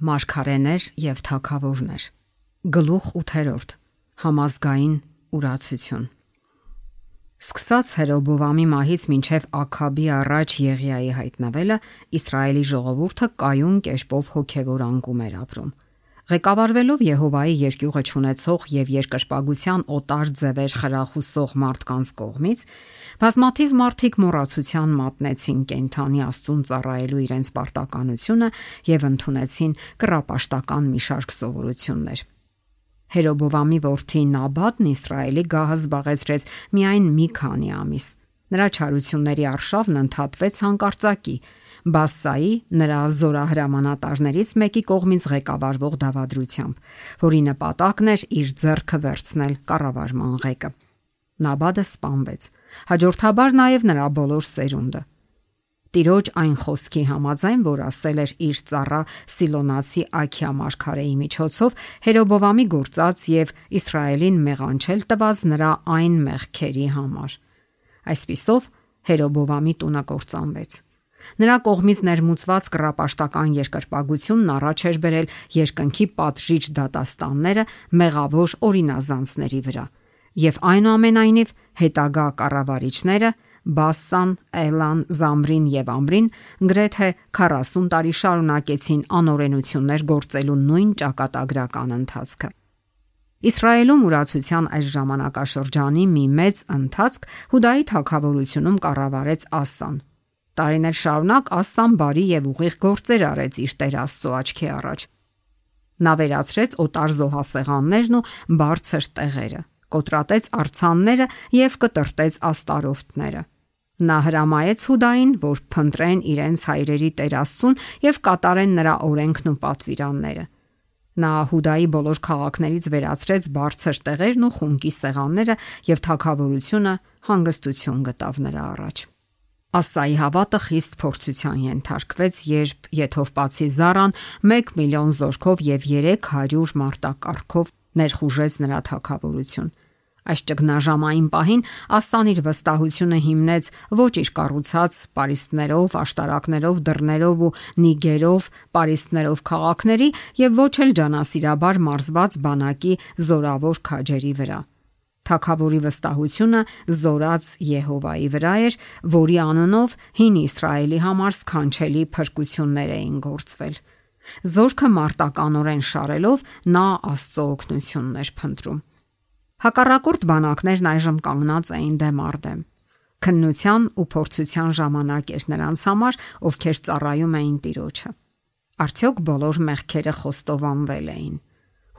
Մարգարեներ եւ թագավորներ։ Գլուխ 8. Համազգային ուրացություն։ Սկսած Հերոբովամի մահից մինչև Աքաբի առաջ Եղիայի հայտնվելը, Իսրայելի ժողովուրդը կայուն կերպով հոգևոր անկում էր ապրում։ Ղեկավարվելով Եհովայի երկյուղը ճանաչող եւ երկրպագության օտար ձևեր խրախուսող մարդկանց կողմից, բազմաթիվ մարդիկ մոռացության մատնեցին կենթանի Աստծուն ծառայելու իրենց պարտականությունը եւ ընդունեցին կռապաշտական մի շարք սովորություններ։ Հերոբովամի որդի Նաբաթն Իսրայելի գահը զբաղեցրեց միայն մի քանի ամիս։ Նրա չարությունների արշավն ընդհատվեց հանկարծակի Բասայի նրա զորահրամանատարներից մեկի կողմից ղեկավարվող դավադրությամբ, որի նպատակն էր իր ձեռքը վերցնել կառավարման ղեկը։ Նաբաթը սպանվեց, հաջորդաբար նաև նրա բոլոր սերունդը։ Տիրոջ այն խոսքի համաձայն, որ ասել էր իր ծառա Սիլոնացի Աքիա մարգարեի միջոցով, Հերոբովամի գործած եւ Իսրայելին մեղանչել տված նրա այն մեղքերի համար։ Այսպիսով Հերոբովամի տունը կործանվեց։ Նրա կողմից ներմուծված կռապաշտական երկրպագությունն առաջ էր բերել երկնքի պատժիչ դատաստանները մեղավոր օրինազանցների վրա, եւ այնուամենայնիվ հետագա կառավարիչները Բասան, Էլան, Զամրին եւ Ամրին գրեթե 40 տարի շարունակեցին անօրենություններ գործելու նույն ճակատագրական ընթացքը։ Իսրայելում ուրացության այս ժամանակաշրջանի մի մեծ ընթացք Հուդայի թագավորությունում կառավարեց Ասան։ Տարիներ շարունակ Ասան բարի եւ ուղիղ գործեր արեց իր Տեր Աստծո աչքի առաջ։ Նա վերացրեց օտար զոհասեղաններն ու բարձր տեղերը, կոտրատեց արձանները եւ կտրտեց աստարոստները։ Նա հրամայեց Հուդային, որ փնտրեն իրենց հայրերի Տեր Աստծուն եւ կատարեն նրա օրենքն ու պատվիրանները։ Նա Հուդայի բոլոր քաղաքներից վերացրեց բարձր տեղերն ու խունկի սեղանները եւ թագավորությունը հանգստություն գտավ նրա առաջ։ Ասայի հավատը խիստ փորձության ենթարկվեց, երբ Եթովպացի Զարան 1 միլիոն զորքով եւ 300 մարտակառքով ներխուժեց նրա թագավորություն։ Այս ճգնաժամային պահին Ասան իր վստահությունը հիմնեց ոչ իր կառուցած պարիսպներով, աշտարակներով, դռներով ու նիգերով, պարիսպներով քաղաքների եւ ոչ էլ ջանասիրաբար մարզված բանակի զորավոր քաջերի վրա։ Թագավորի վստահությունը զորած Եհովայի վրա էր, որի անունով հին Իսրայելի համար սքանչելի փրկություններ էին գործվել։ Զորքը մարտականորեն շարելով նա Աստծո օգնությունն էր փնտրում։ Հակառակորդ բանակներն այժմ կանգնած էին դեմ առ դեմ։ Քննության ու փորձության ժամանակ էր նրանց համար, ովքեր ծառայում էին Տիրոջը։ Արդյոք բոլոր մեղքերը խոստովանվել էին։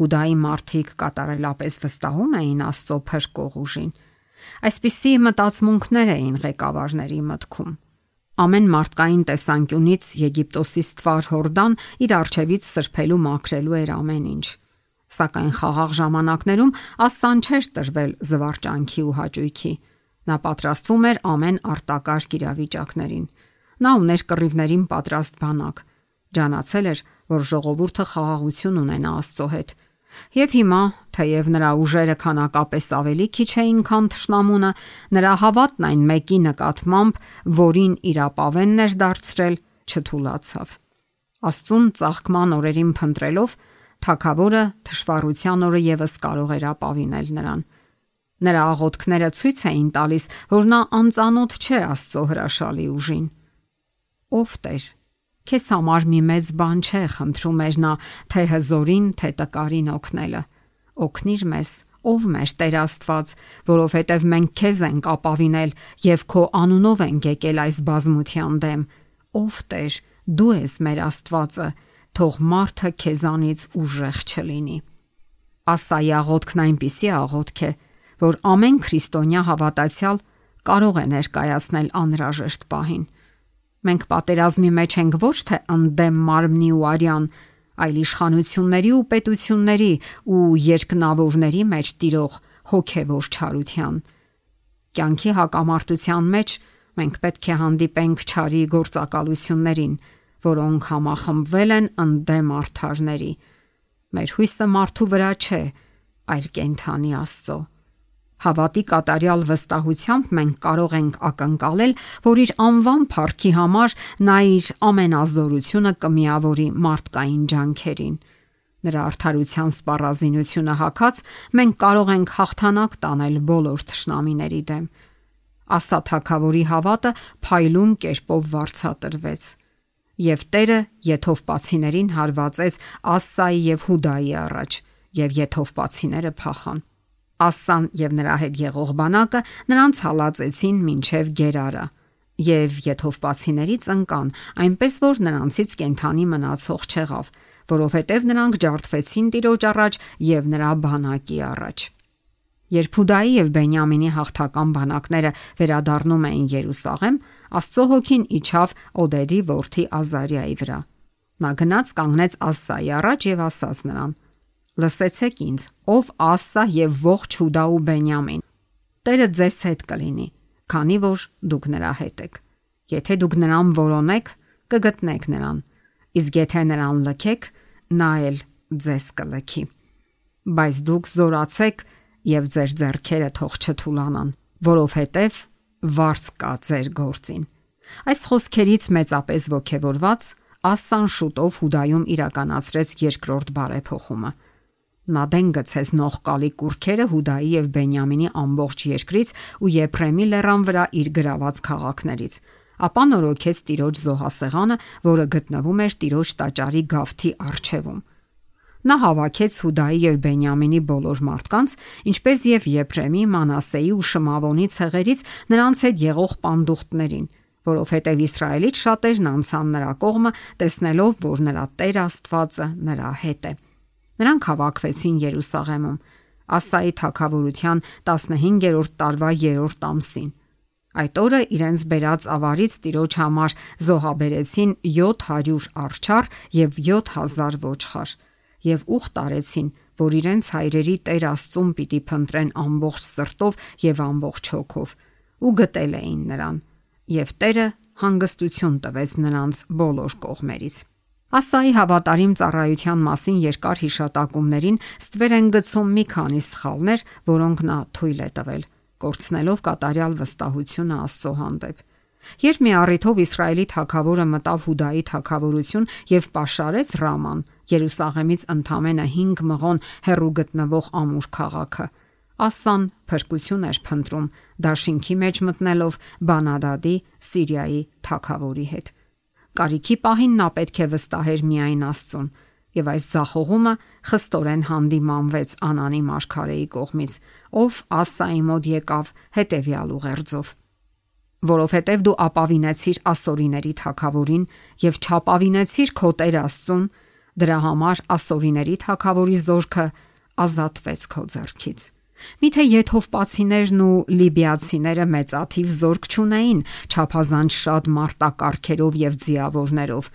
Հուդայի մարդիկ կատարելապես վստահում էին Աստծո փրկող ուժին։ Այսպիսի մտածմունքներ էին ղեկավարների մտքում։ Ամեն մարդկային տեսանկյունից Եգիպտոսի ստվար Հորդան իր առջևից սրբելու մաքրելու էր ամեն ինչ։ Սակայն խաղաղ ժամանակներում Ասան չէր տրվել զվարճանքի ու հաճույքի։ Նա պատրաստվում էր ամեն արտակարգ իրավիճակներին։ Նա ուներ կռիվներին պատրաստ բանակ։ Ջանացել էր, որ ժողովուրդը խաղաղություն ունենա Աստծո հետ։ Եվ հիմա, թեև նրա ուժերը քանակապես ավելի քիչ էին, քան թշնամունը, նրա հավատն այն մեկի նկատմամբ, որին իրապավենն էր դարձրել, չթուլացավ։ Աստծուն ծաղկման օրերին փնտրելով, թագավորը թշվառության օրը եւս կարող էր ապավինել նրան։ Նրա աղոթքները ցույց էին տալիս, որ նա անծանոթ չէ Աստծո հրաշալի ուժին։ Ով Տեր, քեզ համար մի մեծ բան չէ, խնդրում էր նա, թե հզորին, թե տկարին օգնելը։ Օգնիր մեզ, ով մեր Տեր Աստված, որովհետև մենք քեզ ենք ապավինել եւ քո անունով ենք եկել այս բազմության դեմ։ Ով Տեր, դու ես մեր Աստվածը, թող մարդը քեզանից ուժեղ չլինի։ Ասայի աղոթքն այնպիսի աղոթք է, որ ամեն քրիստոնյա հավատացյալ կարող է ներկայացնել անհրաժեշտ պահին։ Մենք պատերազմի մեջ ենք ոչ թե ընդդեմ մարմնի ու արյան, այլ իշխանությունների ու պետությունների ու երկնավորների մեջ տիրող հոգևոր չարության։ Կյանքի հակամարտության մեջ մենք պետք է հանդիպենք չարի գործակալություններին, որոնք համախմբվել են ընդդեմ արդարների։ Մեր հույսը մարդու վրա չէ, այլ կենթանի Աստծո։ Հավատի կատարյալ վստահությամբ մենք կարող ենք ակնկալել, որ իր անվան փառքի համար նա իր ամենազորությունը կմիավորի մարդկային ջանքերին։ Նրա արդարության սպառազինությունը հագած մենք կարող ենք հաղթանակ տանել բոլոր թշնամիների դեմ։ Ասա թագավորի հավատը փայլուն կերպով վարձատրվեց, եւ Տերը եթովպացիներին հարվածեց Ասսայի եւ Հուդայի առաջ, եւ եթովպացիները փախան։ Ասսան եւ նրա հետ եղող բանակը նրանց հալածեցին մինչև Գերարա, եւ եթովպացիներից ընկան, այնպես որ նրանցից կենթանի մնացող չեղավ, որովհետև նրանք ջարդվեցին Տիրոջ առաջ եւ նրա բանակի առաջ։ Երբ Հուդայի եւ Բենյամինի հաղթական բանակները վերադառնում էին Երուսաղեմ, Աստծո հոգին իջավ Օդեդի որդի Ազարիայի վրա։ Նա գնաց կանգնեց Ասսայի առաջ եւ ասաց նրան. «Լսեցեք ինձ, ով Ասսա եւ ողջ Հուդա ու Բենյամին, Տերը ձեզ հետ կլինի, քանի որ դուք նրա հետ եք։ Եթե դուք նրան որոնեք, կգտնեք նրան, իսկ եթե նրան լքեք, նա էլ ձեզ կլքի։ Բայց դուք զորացեք եւ ձեր ձեռքերը թող չթուլանան, որովհետեւ վարձ կա ձեր գործին»։ Այս խոսքերից մեծապես ոգևորված Ասսան շուտով Հուդայում իրականացրեց երկրորդ բարեփոխումը։ Նա դեն գցեց նողկալի կուրքերը Հուդայի եւ Բենյամինի ամբողջ երկրից ու Եփրեմի լեռան վրա իր գրաված քաղաքներից, ապա նորոգեց Տիրոջ զոհասեղանը, որը գտնվում էր Տիրոջ տաճարի գավթի առջևում։ Նա հավաքեց Հուդայի եւ Բենյամինի բոլոր մարդկանց, ինչպես եւ Եփրեմի, Մանասեի ու Շմավոնի ցեղերից նրանց հետ եղող պանդուխտներին, որովհետեւ Իսրայելից շատերն անցան նրա կողմը, տեսնելով, որ նրա Տեր Աստվածը նրա հետ է։ Նրանք հավաքվեցին Երուսաղեմում Ասայի թագավորության 15-րդ տարվա 3-րդ ամսին։ Այդ օրը իրենց բերած ավարից Տիրոջ համար զոհաբերեցին 700 արջառ եւ 7000 ոչխար եւ ուխտ արեցին, որ իրենց հայրերի Տեր Աստծուն պիտի փնտրեն ամբողջ սրտով եւ ամբողջ հոգով, ու գտել էին նրան, եւ Տերը հանգստություն տվեց նրանց բոլոր կողմերից։ Ասայի հավատարիմ ծառայության մասին երկար հիշատակումներին ստվեր են գցում մի քանի սխալներ, որոնք նա թույլ է տվել, կորցնելով կատարյալ վստահությունը Աստծո հանդեպ։ Երբ մի առիթով Իսրայելի թագավորը մտավ Հուդայի թագավորություն եւ պաշարեց Ռաման, Երուսաղեմից ընդամենը 5 մղոն հեռու գտնվող ամուր քաղաքը, Ասսան փրկություն էր փնտրում դաշինքի մեջ մտնելով Բանադադի Սիրիայի թագավորի հետ։ Կարիքի պահին նա պետք է վստահեր միայն Աստծուն, եւ այս ձախողումը խստորեն հանդիմանվեց Անանի մարգարեի կողմից, ով Ասսայի մոտ եկավ հետեւյալ ուղերձով. որովհետև դու ապավինեցիր ասորիների թագավորին եւ չապավինեցիր քո Տեր Աստծուն, դրա համար ասորիների թագավորի զորքը ազատվեց քո ձեռքից։ Միթե եթովպացիներն ու լիբիացիները մեծաթիվ զորք չունեին, չափազանց շատ մարտակառքերով եւ ձիավորներով,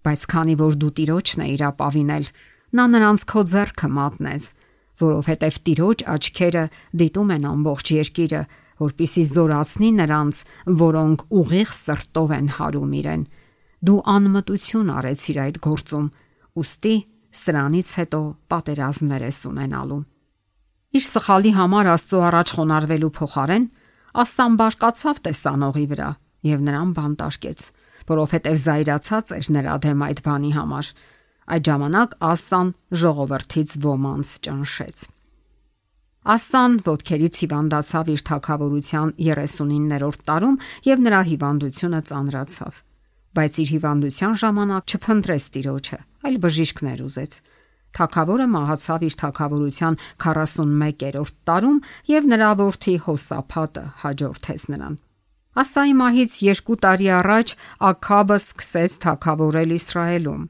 բայց քանի որ դու Տիրոջն էիր ապավինել, նա նրանց քո ձեռքը մատնեց, որովհետև Տիրոջ աչքերը դիտում են ամբողջ երկիրը, որպիսի զորացնի նրանց, որոնք ուղիղ սրտով են հարում իրեն։ Դու անմտություն արեցիր այդ գործում, ուստի սրանից հետո պատերազմներ ես ունենալու։ Իր սխալի համար Աստծո առաջ խոնարհվելու փոխարեն Ասսան բարկացավ տեսանողի վրա եւ նրան բանտարկեց, որովհետեւ զայրացած էր նրա դեմ այդ բանի համար։ Այդ ժամանակ Ասսան ժողովրդից ոմանց ճնշեց։ Ասսան ոտքերից հիվանդացավ իր թագավորության 39-րդ տարում եւ նրա հիվանդությունը ծանրացավ, բայց իր հիվանդության ժամանակ չփնտրեց Տիրոջը, այլ բժիշկներ ուզեց։ Թագավորը մահացավ իր թագավորության 41-րդ տարում եւ նրա որդի Հոսափատը հաջորդեց նրան։ Ասայի մահից 2 տարի առաջ Աքաբը սկսեց թագավորել Իսրայելում։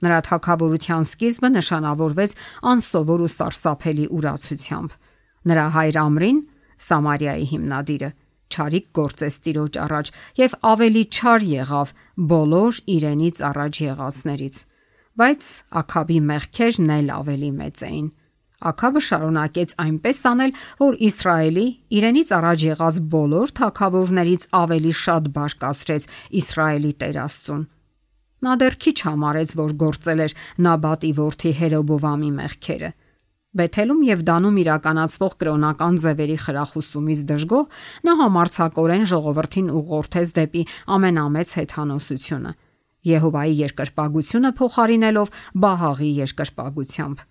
Նրա թագավորության սկիզբը նշանավորվեց անսովոր ու սարսափելի ուրացությամբ։ Նրա հայր Ամրին, Սամարիայի հիմնադիրը, չարիք գործեց Տիրոջ առաջ եւ ավելի չար եղավ բոլոր իրենից առաջ եղածներից։ Բայց Աքաբի մեղքերն էլ ավելի մեծ էին։ Աքաբը շարունակեց այնպես անել, որ Իսրայելի իրենից առաջ եղած բոլոր թագավորներից ավելի շատ բարկացրեց Իսրայելի Տեր Աստծուն։ Նա դեռ քիչ համարեց, որ գործել էր Նաբատի որդի Հերոբովամի մեղքերը, Բեթելում եւ Դանում իրականացվող կրոնական ձևերի խրախուսումից դժգոհ նա համարձակորեն ժողովրդին ուղղորդեց դեպի ամենամեծ հեթանոսությունը՝ Եհովայի երկրպագությունը փոխարինելով Բահաղի երկրպագությամբ։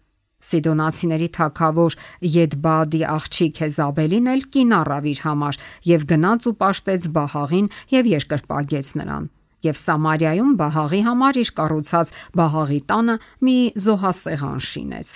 Սիդոնացիների թագավոր Եդբադի աղջիկ Հեզաբելին էլ կին առավ իր համար եւ գնաց ու պաշտեց Բահաղին եւ երկրպագեց նրան։ Եվ Սամարիայում Բահաղի համար իր կառուցած Բահաղի տանը մի զոհասեղան շինեց։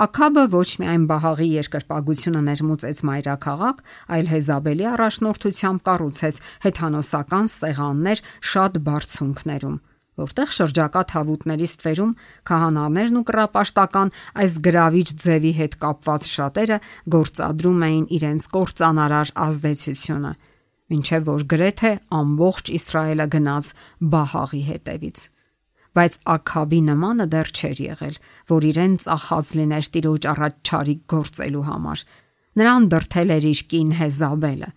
Աքաբը ոչ միայն Բահաղի երկրպագությունը ներմուծեց մայրաքաղաք, այլ Հեզաբելի առաջնորդությամբ կառուցեց հեթանոսական սեղաններ շատ բարձունքներում, որտեղ շրջակա թավուտների ստվերում քահանաներն ու կռապաշտական այս գրավիչ ձևի հետ կապված շատերը գործադրում էին իրենց կործանարար ազդեցությունը, մինչև որ գրեթե ամբողջ Իսրայելը գնաց Բահաղի հետևից։ Բայց Աքաբի նմանը դեռ չէր եղել, որ իրեն ծախած լիներ Տիրոջ առաջ չարիք գործելու համար։ Նրան դրթել էր իր կին Հեզաբելը,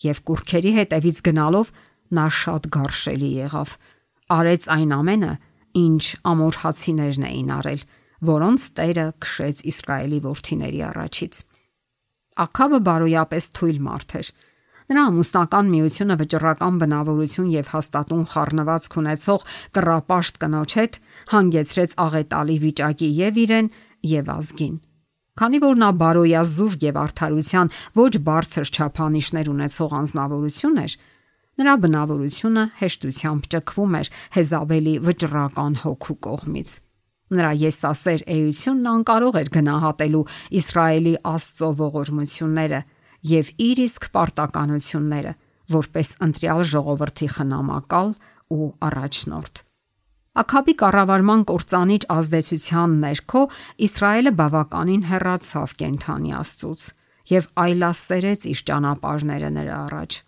եւ կուռքերի հետևից գնալով նա շատ գարշելի եղավ։ Արեց այն ամենը, ինչ ամորհացիներն էին արել, որոնց Տերը քշեց Իսրայելի որդիների առաջից։ Աքաբը բարոյապես թույլ մարդ էր։ Նրա ամուսնական միությունը վճռական բնավորություն եւ հաստատուն խառնվածք ունեցող կռապաշտ կնոջ հետ հանգեցրեց աղետալի վիճակի եւ իրեն եւ ազգին։ Քանի որ նա բարոյազուրկ եւ արդարության ոչ բարձր չափանիշներ ունեցող անձնավորություն էր, նրա բնավորությունը հեշտությամբ ճկվում էր Հեզաբելի վճռական հոգու կողմից։ Նրա եսասեր էությունն անկարող էր գնահատելու Իսրայելի Աստծո ողորմությունները եւ իր իսկ պարտականությունները, որպես ընտրյալ ժողովրդի խնամակալ ու առաջնորդ։ Աքաբի կառավարման կործանիչ ազդեցության ներքո Իսրայելը բավականին հեռացավ կենթանի Աստծուց եւ այլասերեց իր ճանապարհները նրա առաջ։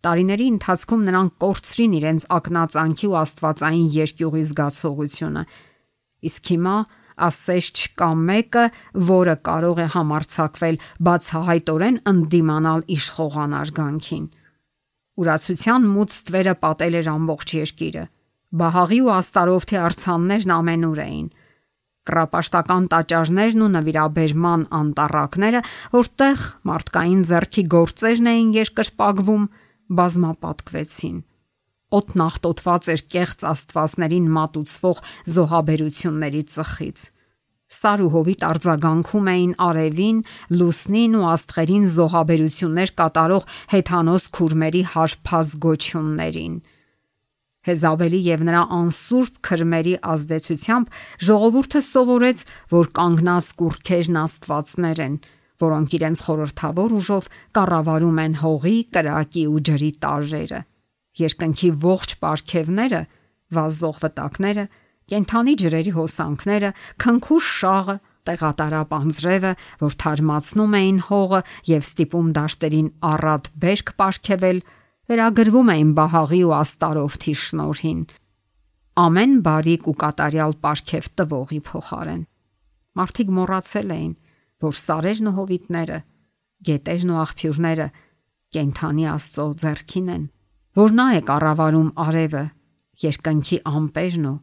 Տարիների ընթացքում նրանք կորցրին իրենց ակնածանքի ու աստվածային երկյուղի զգացողությունը, իսկ հիմա ասես չկա մեկը, որը կարող է համարձակվել բացահայտորեն ընդդիմանալ իշխողանար գանքին։ Ուրացության մութ ստվերը պատել էր ամբողջ երկիրը։ Բահաղի ու Աստարովթի արձաններն ամենուր էին։ Կռապաշտական տաճարներն ու նվիրաբերման անտառակները, որտեղ մարդկային ձեռքի գործերն էին երկրպագվում, բազմապատկվեցին։ Օդն աղտոտված էր կեղծ աստվածներին մատուցվող զոհաբերությունների ծխից։ Սար ու հովիտ արձագանքում էին արևին, լուսնին ու աստղերին զոհաբերություններ կատարող հեթանոս քուրմերի հարբած գոչյուններին։ Հեզաբելի եւ նրա անսուրբ քրմերի ազդեցությամբ ժողովուրդը սովորեց, որ կանգնած կուռքերն աստվածներ են, որոնք իրենց խորհրդավոր ուժով կառավարում են հողի, կրակի ու ջրի տարրերը։ Երկնքի ողջ պարգևները, վազող վտակները, կենթանի ջրերի հոսանքները, քնքուշ շաղը, տեղատարապ անձրևը, որ թարմացնում էին հողը եւ ստիպում դաշտերին առատ բերք պարգևել, վերագրվում էին Բահաղի ու Աստարովթի շնորհին, ամեն բարիք ու կատարյալ պարգև տվողի փոխարեն։ Մարդիկ մոռացել էին, որ սարերն ու հովիտները, գետերն ու աղբյուրները կենթանի Աստծո ձեռքին են, որ նա է կառավարում արևը, երկնքի ամպերն ու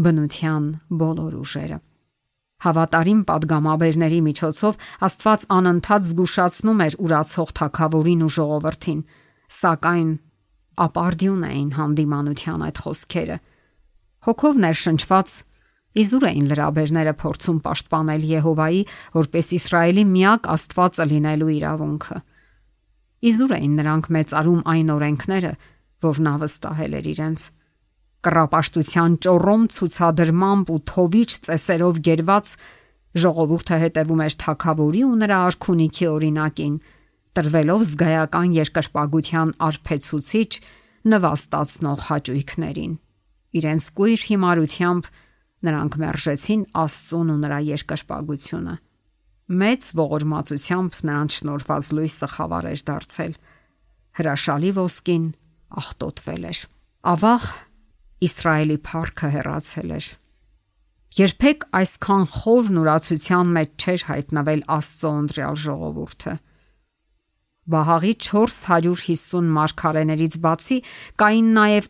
բնության բոլոր ուժերը։ Հավատարիմ падգամաբերների միջոցով Աստված անընդհատ զգուշացնում էր ուրացող թագավորին ու ժողովրդին, սակայն ապարդյուն էին հանդիմանության այդ խոսքերը։ Հոգով ներշնչված իզուր էին լրաբերները փորձում պաշտպանել Եհովայի, որպես Իսրայելի միակ Աստվածը լինելու իրավունքը։ Իզուր էին նրանք մեծարում այն օրենքները, որ նա վստահել էր իրենց։ Կռապաշտության ճոռոմ ցուցադրմամբ ու թովիչ ծեսերով գերված ժողովուրդը հետևում էր թագավորի ու նրա արքունիքի օրինակին, տրվելով զգայական երկրպագության արբեցուցիչ նվաստացնող հաճույքներին։ Իրենց կույր հիմարությամբ նրանք մերժեցին Աստծուն ու նրա երկրպագությունը։ Մեծ ողորմածությամբ նրանց շնորհված լույսը խավար էր դարձել։ Հրաշալի ոսկին աղտոտվել էր։ Ավաղ Իսրայելի փառքը հեռացել էր։ Երբեք այսքան խոր նորացության մեջ չէր հայտնվել Աստծո ընտրյալ ժողովուրդը։ Բահաղի 450 մարգարեներից բացի կային նաև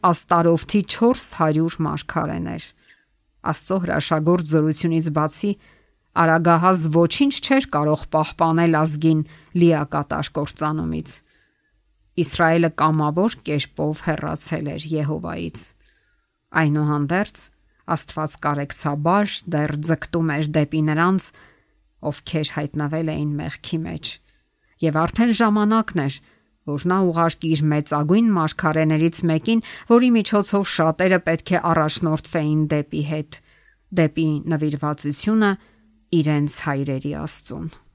Արագահաս ոչինչ չէր կարող պահպանել ազգին լիակատար կործանումից։ Իսրայելը կամավոր կերպով հեռացել էր Եհովայից։ Այնուհանդերձ Աստված կարեկցաբար դեռ ձգտում էր դեպի նրանց, ովքեր հայտնվել էին մեղքի մեջ, եւ արդեն ժամանակն էր, որ նա ուղարկի իր մեծագույն մարգարեներից մեկին, որի միջոցով շատերը պետք է առաջնորդվեին դեպի հետ, դեպի նվիրվածությունը իրենց հայրերի Աստծուն։